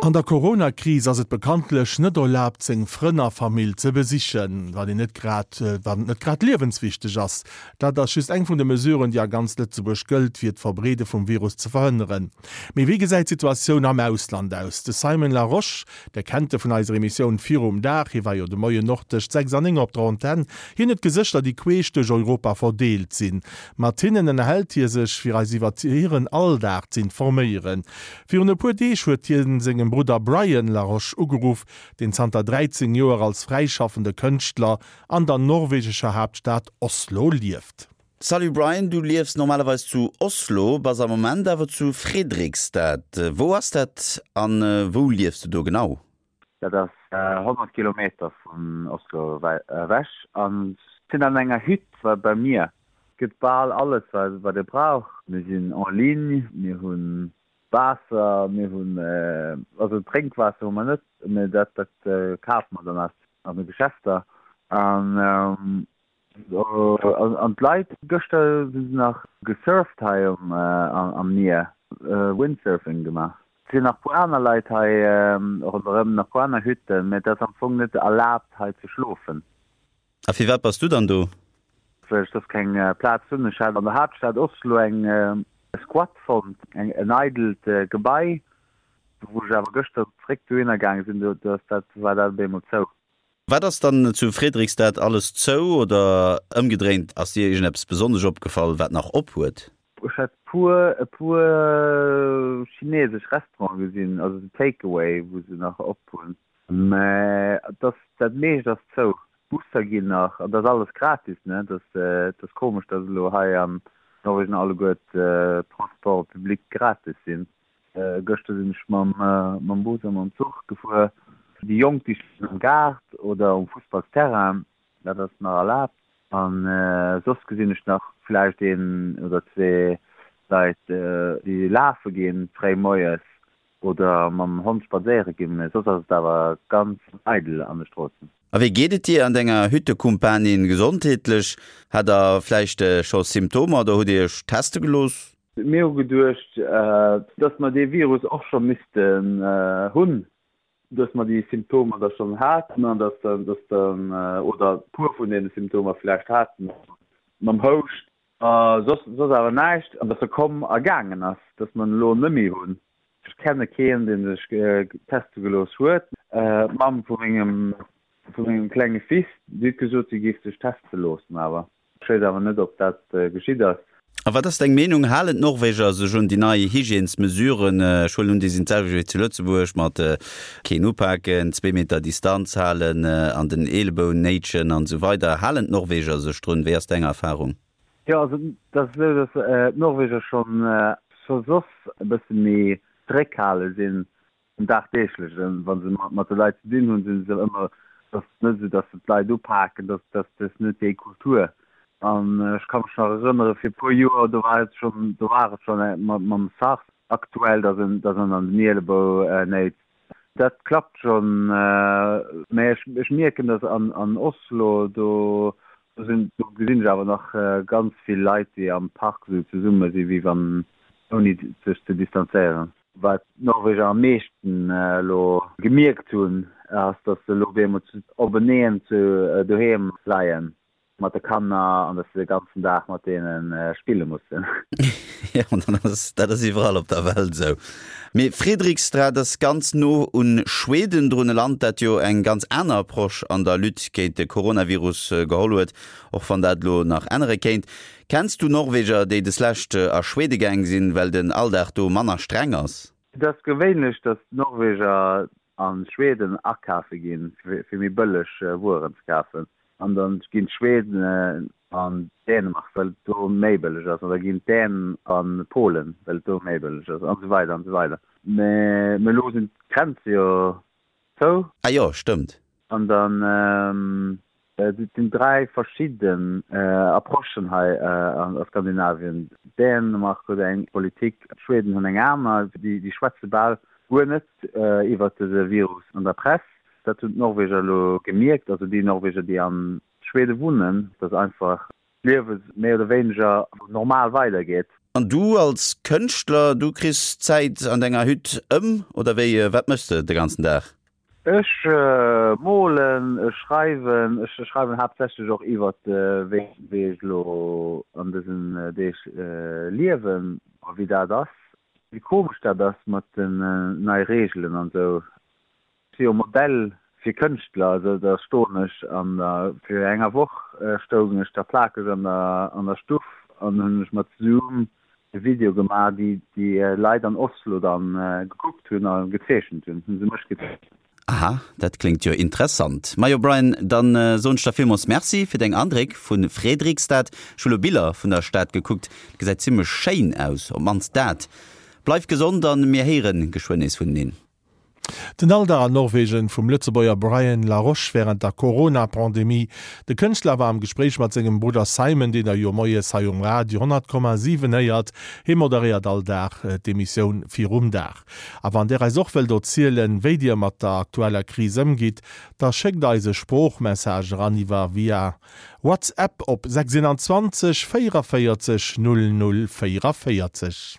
An der Corona-Kris ass et bekanntlech net erlaabt, seng Frënn a Famill ze besichen, wann een net grad, wann et net grad liewenswichteg ass. Dat ass just eng vun de Mesuren, déi a ganz Lëtzebuerg gëllt, fir d'Verbreede vum Virus ze verhënneren. Mee wéi gesäit d'Situatioun am Ausland aus? De Simon Larosche, Der kennt e vun eiser Emissioun Virum Dag, hie war jo de Moien och tëscht 6 an 9 op der Antenn. Hien huet Gesëschter, déi queesch duerch Europa verdeelt sinn. Mat hinnen ënnerhält hie sech, fir eis iwwer hiren Alldag z'informéieren. Virun e puer Deeg huet hien sengem Brudder Brian Laroche ugeruff, deen zanter 13 Joer als fräischaffende Kënschtler an der norwegescher Haaptstad Oslo lieft. Salut Brian, du liefs normalerweis zu Oslo, bass am Moment awer zu Fredrikstad. Wou ass dat an wou liefs du do genau? Dat ass 100 Kilometer vun Oslo ewech an sinn an enger Hütt beim Mier. Gëtt bal alles wat ee brauch. Mir sinn en ligne, mir hunn Waasser, mir hunn, also Drénkwaasser hu mer net, mee dat dat kafe mer dann aus an de Geschäfter. An an d'Leit, gëschter si se nach gesurft hei um am Mier, Windsurfing gemaach. Et sinn nach puer aner Leit hei ronderëm, nach puer aner Hütten, mee et ass am Fong net erlaabt hei ze schlofen. A firwat bass du dann do? Well ech soss keng Plaz hunn. Ech hat an der Haaptstad Oslo eng Squat fonnt, en eidelt Gebai, wou ech awer gëschter zeréck dohinner gaange sinn, do ass dat, war dat op eemol zou. Wat ass dann zu Fredrikstad alles zou oder ëmgedréint, ass dir iergendeppes besonnesch opgefall, wat nach op huet? Ech hat puer e puer chinesesch Restaurante gesinn, also sou Takeaway, wou se nach op hunn. Mä et ass, dat meescht ass zou. D'Busser ginn nach, an dat ass alles gratis, ne? Dat ass komesch, datt elo hei an Norwegen alleguer d'Transports publics gratis sinn. Gëschter sinn ech mam mam Bus a mam Zuch gefuer. Déi Jonk, déi spillen am Gaart oder um Fussballsterrain, dat ass nach erlaabt. An soss gesinn ech nach vläicht een oder zwee Leit, déi lafe ginn fréi moies. Oder mam Hond spadséiere ginn, mee soss ass et awer ganz eidel an de Stroossen. A wéi geet et dir an denger Hüttekumpanin gesondheetlech? Hat der vläicht scho Symptomer oder hutt dir iech teste gelooss? Mir hu geduecht, dass mer dee Virus och scho missten hunn, dass mer déi Symptomer da schonn haten an dass dann, dass dann, oder e puer vun deene Symptomer vläicht haten, mam Houscht A soss, soss awer näischt. An dass e komm a gaangen ass, dass mer en elo net méi hunn. Ech kenne keen, dee sech teste gelooss huet. D'Mamm vu mengem, vu mengem klenge Fils, déi huet gesot, si géif sech teste loossen, awer ech weess awer net, ob dat geschitt ass. A wat ass deng Meenung, halen d'Norweger sech un déi nei Hygiènesmesuren? Ech huelen un, déi sinn d'selwecht wéi zu Lëtzebuerg, mat keen upaken, zwee Meter Distanz halen, an den Eeleboun néitschen an esou weider. Halen d'Norweger sech drun? Wéi ass deng Erfarung? Jo, also et ass esou, datt d'Norweger schonn scho soss e bësse méi zeréckhale sinn am Dagdeeglechen. Wa se mat de Leit ze dinn hunn, si se ëmmer, et ass net esou, datt se d'Leit upaken, dat ass net déi Kultur. An ech ka mech nach erënnere fir e puer Joer, do war et schonn, do war et schonn mam SARS aktuell, datt en, datt en an den Ielebou néitst. Dat klappt schonn, mä ech, ech mierken, datt an Oslo, do sinn, do gesinn ech awer nach ganz vill Leit, déi am Park esou zesumme sinn, wéi wann, ouni sech ze distanzéieren. Wat d'Norweger am meeschten elo gemierkt hunn, ass, datt se elo op eemol openeen zu doheem leien mat de Kanner an datt se de ganzen Dag mat deene spille mussen. Jo, dat ass, dat ass iwwerall op der Welt esou. Mee Fredrikstad ass ganz no un Schweden drun, e Land, dat jo eng ganz aner Approche an der Lutte géint de Coronavirus geholl huet, och wann dat elo nach ännere kéint. Kenns du Norweger, déi deslescht a Schwede gaang sinn, well den Alldag do manner streng ass? Et ass gewéinlech, datt d'Norweger a Schweden akafe ginn, fir méi bëlleg Wueren ze kafen. An da ginn d'Schweden an Dänemark, well et do méi bëlleg ass, an da ginn d'Dänen a Polen, well et do méi bëlleg ass, an esou weider an esou weider. Mee elo sinn d'Grenze jo zou. Ah jo, stëmmt. An dann, et sinn 3 verschidden Approchen hei a Skandinavien. Dänemark huet eng Politik, d'Schweden hunn eng aner. Déi schwätze bal guer net iwwert dëse Virus an der Press. Dat hunn d'Norweger elo gemierkt, also déi Norweger, déi a Schwede wunnen, datt einfach d'Liewe méi oder wéineger normal weidergeet. An du als Kënschtler, du kriss d'Zäit an denger Hütt ëm, oder wéi? Wat méchs de de ganzen Dag? Ech molen, ech schreiwen, ech schreiwen haaptsächlech och iwwert wéi wéi ech elo an dësen Deeg liewen a wéi dat ass, wéi komesch dat ass mat den nei Reegelen an esou. Ech si jo Modell fir Kënschtler, also da stoen ech an der, fir enger Woch stoung ech da plakeg an der an der Stuff an hunn ech mat Zoom e Video gemaach, déi déi Leit an Oslo dann gekuckt hunn a gezeechent hunn, hunn se mech gezeechent. Aha, dat kléngt jo interessant. Majo Brian, dann soen ech der villmols Merci fir deng Andréck vu Fredrikstad. Ech hu lo Biller vun der Stad gekuckt, gesäit zimlech schéin aus, op mannst dat. Bleif gesond an mir héieren geschwënn nees vuneneen. Den Alldag an Norwegen vum Lëtzebuerger Brian Laroche wärend der Corona-Pandemie. De Kënschtler war am Gespréich mat sengem Brudder Simon, deen der jo moies hei um Radio 100,7 héiert. Hie moderéiert all Dag d'Emissioun Virum Dag. A wann där eis och wëllt erzielen, wéi dir mat der aktueller Kris ëmgitt, da schéckt eis e Sproochmessage eran iwwer via WhatsApp op 621 44 00 44.